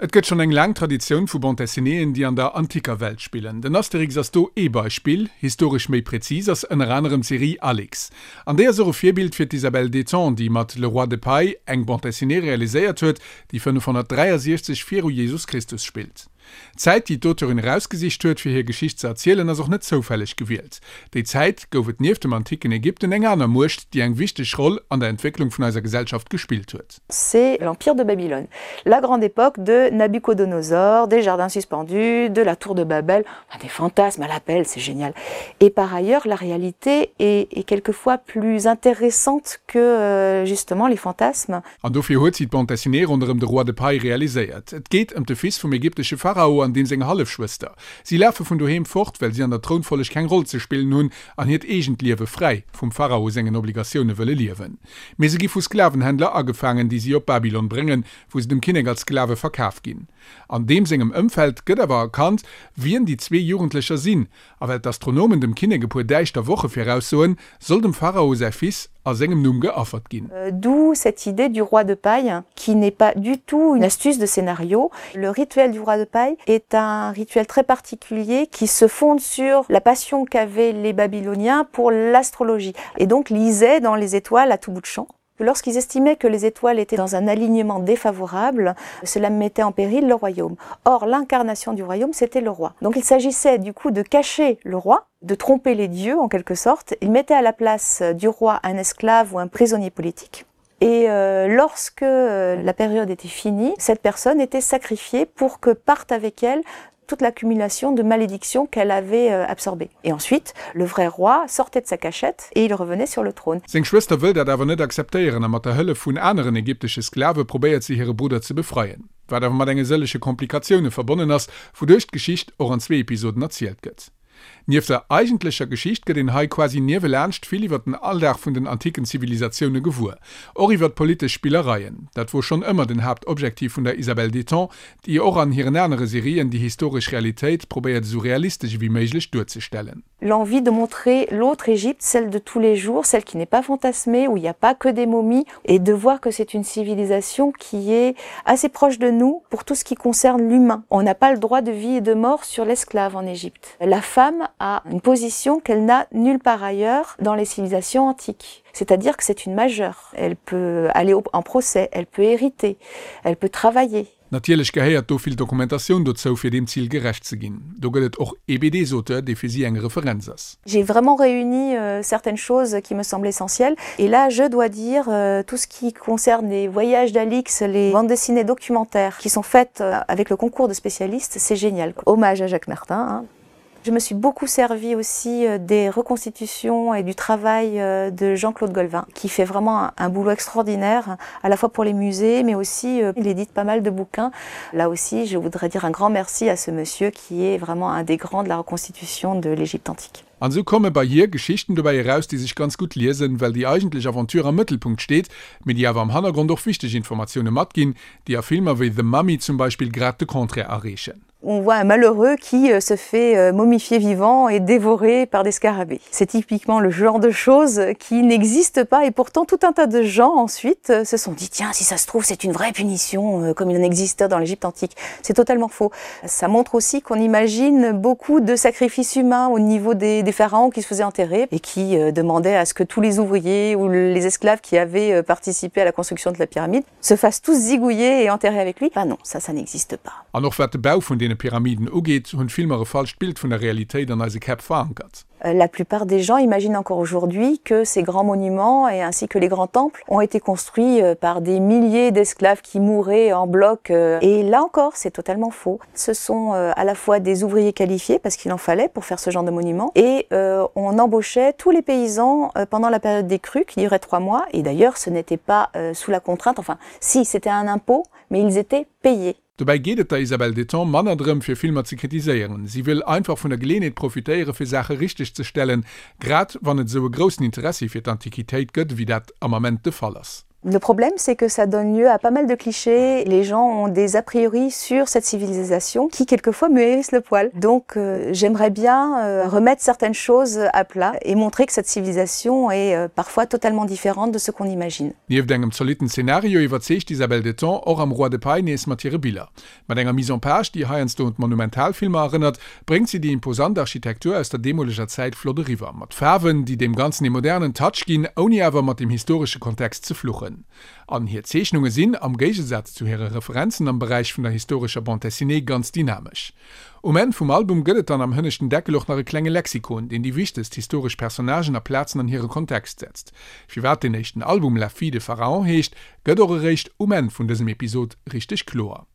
Et gëtt schonn eng laang Traditioun vu Bande Dessinéeën, déi an der anticker Welt spillen. Den Asterix ass do ee Beispill. Historesch méi präzis ass ënner anerem d'Serie Alix. An déi ass och e Virbild fir d'Isabelle Détang, déi mat Le Roi de Paille eng Bande Dessinée realiséiert huet, déi 563 viru Jesus Christus spillt. D'Zäit, déi d'Auteurin erausgesicht huet, fir hir Geschicht ze erzielen, ass och net zoufälleg gewielt. Déi Zäit gouf et nieft dem anticken Ägypten eng aner Muecht, déi eng wichteg Roll an der Entwécklung vun eiser Gesellschaft gespillt huet. C'est l'empire de Babylone, la grande époque de Nabuchodonosor, des jardins suspendus, de la tour de Babel, enfin des fantasmes à l'appel, c'est génial. Et par ailleurs, la réalité est, est quelquefois plus intéressante que euh, justement les fantasmes. An dofir huet si d'Bande dessinée ronderëm de Roi de Paille realiséiert. Et geet ëm de Fils vum ägyptesche Pharao an deem seng Hallefschwëster. Si lafe vun doheem fort, well si an der Trounfolleg keng Roll ze spillen hunn an hiert eegent Liewe fräi vum Pharao sengen Obligatioune wëlle liewen. Mee se gi vu Sklavenhändler agefaangen, déi si op Babylon bréngen, wou se dem Kinnek als Sklave verkaf ginn. An deem sengem Ëmfeld gëtt awer erkannt, wien déi zwee Jugendlecher sinn, A well d'Astronomen dem Kinnek e puer däischter Woche viraussoen, soll dem Pharao säi Fils a sengem Numm geaffert ginn. D'où cette idée du roi de paille qui n'est pas du tout une astuce de scénario. Le rituel du roi de paille est un rituel très particulier qui se fonde sur la passion qu'avaient les Babyloniens pour l'astrologie et donc lisaient dans les étoiles à tout bout de champ. Lorsqu'ils estimaient que les étoiles étaient dans un alignement défavorable, cela mettait en péril le royaume. Or, l'incarnation du royaume, c'était le roi. Donc il s'agissait du coup de cacher le roi, de tromper les dieux en quelque sorte. Ils mettaient à la place du roi un esclave ou un prisonnier politique. Et euh, lorsque euh, la période était finie, cette personne était sacrifiée pour que parte avec elle toute l'accumulation de malédictions qu'elle avait euh, absorbée. Et ensuite, le vrai roi sortait de sa cachette et il revenait sur le trône. Seng Schwëster wëll dat awer net akzeptéieren a mat der Hëllef vun aneren ägyptesche Sklave probéiert si hire Brudder ze befreien, wat awer mat enge sëllege Komplikatioune verbonnen ass, wouduerch d'Geschicht och an zwee Episoden erzielt gëtt. Nieft der eigentlecher Geschicht gëtt een hei quasi niewelaanscht vill iwwer den Alldag vun den anticken Zivilisatioune gewuer. Och iwwer politesch Spillereien. Dat wor schonn ëmmer den Haaptobjektiv vun der Isabelle Détang, déi och an hiren anere Serien déi historesch Realitéit probéiert esou realistesch ewéi méiglech duerzestellen. L'envie de montrer l'autre Égypte, celle de tous les jours, celle qui n'est pas fantasmée, où il n'y a pas que des momies, et de voir que c'est une civilisation qui est assez proche de nous pour tout ce qui concerne l'humain. On n'a pas le droit de vie et de mort sur l'esclave en Égypte. La femme a une position qu'elle n'a nulle part ailleurs dans les civilisations antiques. C'est-à-dire que c'est une majeure. Elle peut aller en procès, elle peut hériter, elle peut travailler. Natierlech gehéiert do vill Dokumentatioun dozou, fir deem Zil gerecht ze ginn. Do gëtt et och ee BDs-Auteur, dee fir si eng Referenz ass. J'ai vraiment réuni certaines choses qui me semblent essentielles et là je dois dire tout ce qui concerne les voyages d'Alix, les bandes dessinées documentaires qui sont faites avec le concours de spécialistes, c'est génial. Hommage à Jacques Martin hein. Je me suis beaucoup servi aussi euh, des reconstitutions et du travail euh, de Jean-Claude Golvin, qui fait vraiment un, un boulot extraordinaire, à la fois pour les musées, mais aussi euh, il édite pas mal de bouquins. Là aussi, je voudrais dire un grand merci à ce monsieur qui est vraiment un des grands de la reconstitution de l'Égypte antique. An esou komme bei hir Geschichten dobäi eraus, déi sech ganz gutt liesen, well déi eigentlech Aventure am Mëttelpunkt steet, mee déi awer am Hannergrond och wichteg Informatioune matginn, déi a Filmer wéi The Mummy zum Beispill grad de Contraire erreechen. On voit un malheureux qui euh, se fait euh, momifier vivant et dévorer par des scarabées. C'est typiquement le genre de choses qui n'existe pas et pourtant tout un tas de gens ensuite euh, se sont dit tiens si ça se trouve c'est une vraie punition comme il en existait dans l'Égypte antique. C'est totalement faux. Ça montre aussi qu'on imagine beaucoup de sacrifices humains au niveau des, des pharaons qui se faisaient enterrer et qui demandaient à ce que tous les ouvriers ou les esclaves qui avaient participé à la construction de la pyramide se fassent tous zigouiller et enterrer avec lui. Ben non, ça ça n'existe pas. An och wat de Bau vun deene Pyramiden ugeet, hunn d'Filmer e falscht Bild vun der Realitéit an eise Käpp verankert. La plupart des gens imaginent encore aujourd'hui que ces grands monuments et ainsi que les grands temples ont été construits euh, par des milliers d'esclaves qui mouraient en bloc. Euh, et là encore, c'est totalement faux. Ce sont euh, à la fois des ouvriers qualifiés parce qu'il en fallait pour faire ce genre de monument et euh, on embauchait tous les paysans euh, pendant la période des crues qui durait trois mois et d'ailleurs ce n'était pas euh, sous la contrainte enfin si c'était un impôt mais ils étaient payés. Dobäi geet et der Isabelle Détang manner drëm, fir Filmer ze kritiséieren. Si wëll einfach vun der Geleeënheet profitéiere fir Saache richteg ze stellen, grad wann et esou e groussen Interessi fir d'Antiquitéit gëtt, ewéi dat am Ament de Fall ass. Le problème, c'est que ça donne lieu à pas mal de clichés. Les gens ont des a priori sur cette civilisation qui quelquefois me hérisse le poil. Donc euh, j'aimerais bien euh, remettre certaines choses à plat et montrer que cette civilisation est euh, parfois totalement différente de ce qu'on imagine. Nieft engem zolitten Zenario iwwerzeegt d'Isabelle Deton och am Roi de paille nees mat hire Biller. Mat enger Mise en page, déi heiansdo un d'Monumentalfilmer erënnert, bréngt si déi imposant Architektur aus der deemoleger Zäit flott eriwwer, mat Faarwen, déi deem Ganzen ee modernen Touch ginn, ouni awer mat dem historesche Kontext ze fluchen. An hir Zeechnunge sinn, am Géigesaz zu hire Referenzen am Beräich vun der historescher Bande dessinée, ganz dynamesch. Um Enn vum Album gëtt et dann am hënneschten Deckel och nach e klenge Lexikon, deen déi wichtegst historesch Personnagen a Plazen an hire Kontext setzt. Firwat deen éischten Album La fille de Pharaon heescht, gëtt och eréischt um Enn vun dësem Episod richteg kloer.